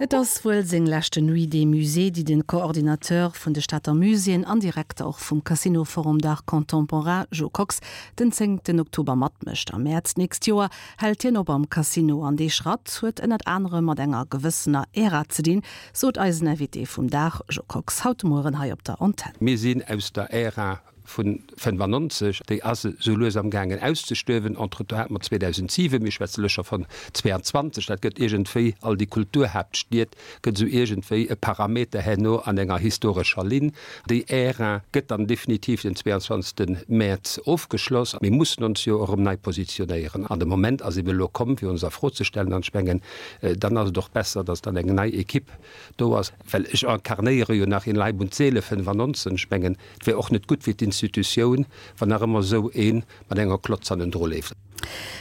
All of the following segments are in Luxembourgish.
Et ass wuel seng leschte Nuit des Musées, déi de Coordinateur vun de Stater Muséeën an Direkter och vum Casino Forum d'Art Contemporain, Jo Kox, den zéngten Oktober matmécht. Am Mäerz d'nächst Joer hält hien op am Casino an dee Schratt huet ënnert anerem mat enger gewëssener Ära ze dinn, sot eisen Invité vum Dag, Jo Kox, haut de Mueren hei op der Antenn. Mir sinn aus der Ära vu 95, déi ass esou lues am gaangen auszestuerwen. Entretemps hate mer 2007, mir schwätze elo scho vun 22, dat gëtt iergendwéi, all déi Kulturhaaptstied gëtt esou iergendwéi e Parameter herno an enger historescher Linn. Déi Ära gëtt dann definitiv den 22. Mäerz ofgeschloss. Mir mussen ons jo erëm nei positionéieren an de Moment ass eben elo komm, fir ons a Fro ze stellen. An ech mengen, dann ass et och besser, datt dann eng nei Equipe do ass, well ech incarnéiere jo nach in Leib und Seele 95. Ech mengen, Et wär och net gutt fir d'Institutioun, wann nach ëmmer esou ee mat enger Klotz hannendru leeft.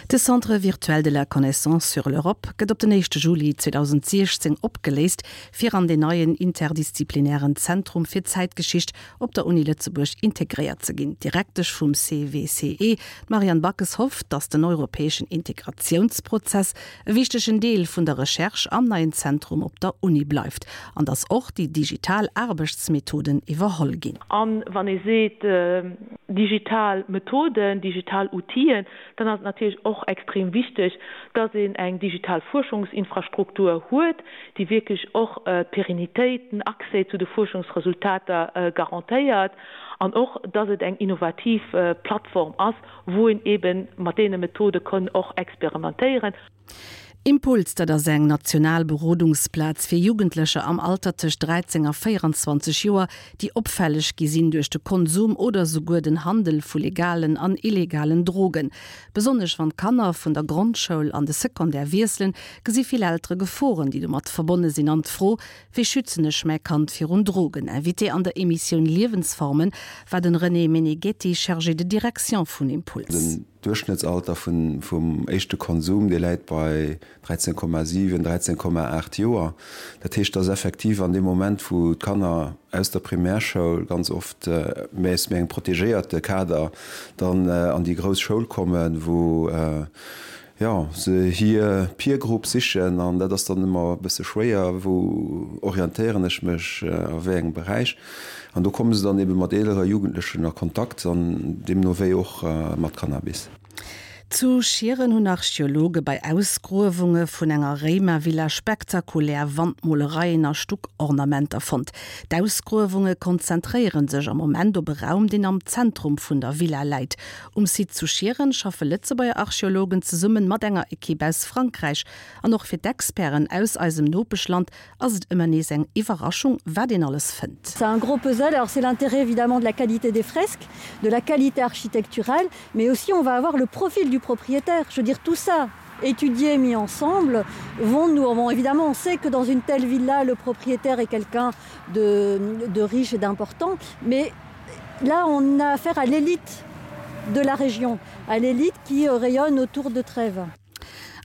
De Centre virtuel de la connaissance sur l'Europe gëtt op den éischte Juli 2016 opgeléist, fir an deen neien interdisziplinären Zentrum fir Zäitgeschicht op der Uni Lëtzebuerg integréiert ze ginn. D'Direktesch vum CVCE, d'Marianne Backes, hofft, datt den europäeschen Integratiounsprozess e wichtegen Deel vun der Recherche am neien Zentrum op der Uni bleift an datt och déi digital Aarbechtsmethoden iwwerholl ginn. A wann ee seet digital Methoden, digital Outiller, dann ass et natierlech och extrem wichteg, dass een eng digital Fuerschungsinfrastruktur huet, déi wierklech och d'Pérennitéit, den Accès zu de Fuerschungsresultater garantéiert an och, dass et eng innovativ Plattform ass, wou een eebe mat deene Methode kann och experimentéieren. Impuls, dat ass eng national Berodungsplaz fir Jugendlecher am Alter tëscht 13 a 24 Joer, déi opfälleg gi sinn duerch de Konsum oder souguer den Handel vu legalen an illegalen Drogen. Besonnesch wann d'Kanner vun der Grondschoul an de Secondaire wiesselen, gesi vill Eltere Geforen, déi domat verbonne sinn an d'Fro, Wéi schützen ech mäi Kand virun Drogen? Invité an der Emissioun Liewensformen war den René Meneghetti, Chargé de Direction vun Impuls. Den Duerchschnëttsalter vum éischte Konsum, dee läit bei 13,7, 13,8 Joer. Dat heescht, dass effektiv an deem Moment, wou d'Kanner aus der Primärschoul ganz oft, mä aus méi engem protegéierte Kader, dann an déi grouss Schoul kommen, wou jo, se hir Peer Group sichen an dat ass dann ëmmer e bësse schwéier, wou orientéieren ech mech, a wéi engem Beräich. An do komme se dann ebe mat eelere Jugendlechen a Kontakt an deemno wéi och mat Cannabis. Zu Schieren hunn Archeologe bei Ausgruewunge vun enger Réimervilla spektakulär Wandmolereien a Stuckornamenter fonnt. D'Ausgruewunge konzentréiere sech am Moment op e Raum, deen am Zentrum vun der Villa läit. Um Site zu Schieren schaffe Lëtzebuerger Archeologen zesumme mat enger Ekipp aus Frankräich. An och fir d'Experten aus eisem Nopeschland ass et ëmmer nees eng Iwwerraschung, wat een alles fënnt. C'est un gros puzzle, alors c'est l'intérêt évidemment de la qualité des fresques, de la qualité architecturale, mais aussi on va avoir le profil du propriétaire. Je veux dire tout ça étudié mis ensemble vont nous bon, évidemment on sait que dans une telle villa le propriétaire est quelqu'un de, de riche et d'important, mais là on a affaire à l'élite de la région, à l'élite qui euh, rayonne autour de Trèves.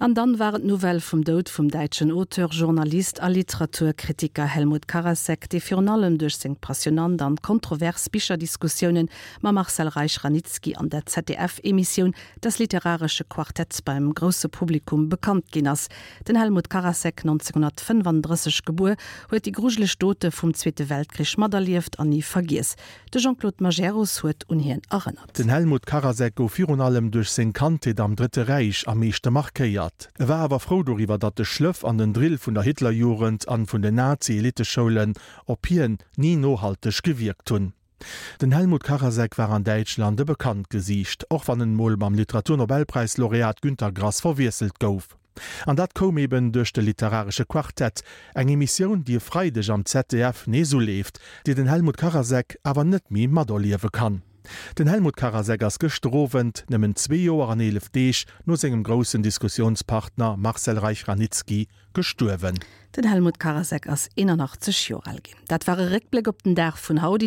An dann war et d'Nouvelle vum Doud vum däitschen Auteur, Journalist a Literaturkritiker Helmut Karasek, dee virun allem duerch seng passionant an kontrovers Bicherdiskussiounen mam Marcel Reich-Ranicki an der ZDF-Emissioun Das literarische Quartett beim grousse Publikum bekannt ginn ass. Den Helmut Karasek, 1935 gebuer, huet déi grujeleg Dote vum Zweete Weltkrich materlieft an ni vergiess. De Jean-Claude Majerus huet un hien erënnert. Den Helmut Karasek gouf virun allem duerch seng Kandheet am Drëtte Räich am meeschte markéiert. E war awer frou doriwwer, datt de Schlëff an den Drill vun der Hitlerjugend an vun den Nazi-Eliteschoulen op hien ni nohalteg gewierkt hunn. Den Helmut Karasek war an Däitschland e bekannt Gesiicht, och wann en mol mam Literaturnobelpräislaureat Günter Grass verwiesselt gouf. An dat koum eben duerch de Literaresche Quartett, eng Emissioun, déi e Freideg am ZDF nees uleeft, déi den Helmut Karasek awer net méi materliewe kann. Den Helmut Karasek ass gëschter Owend, nëmmen zwee Joer an 11 Deeg no sengem groussen Diskussiounspartner Marcel Reich-Ranicki, gestuerwen. Den Helmut Karasek ass 81 Joer al ginn. Dat war e Réckbléck op den Dag vun haut.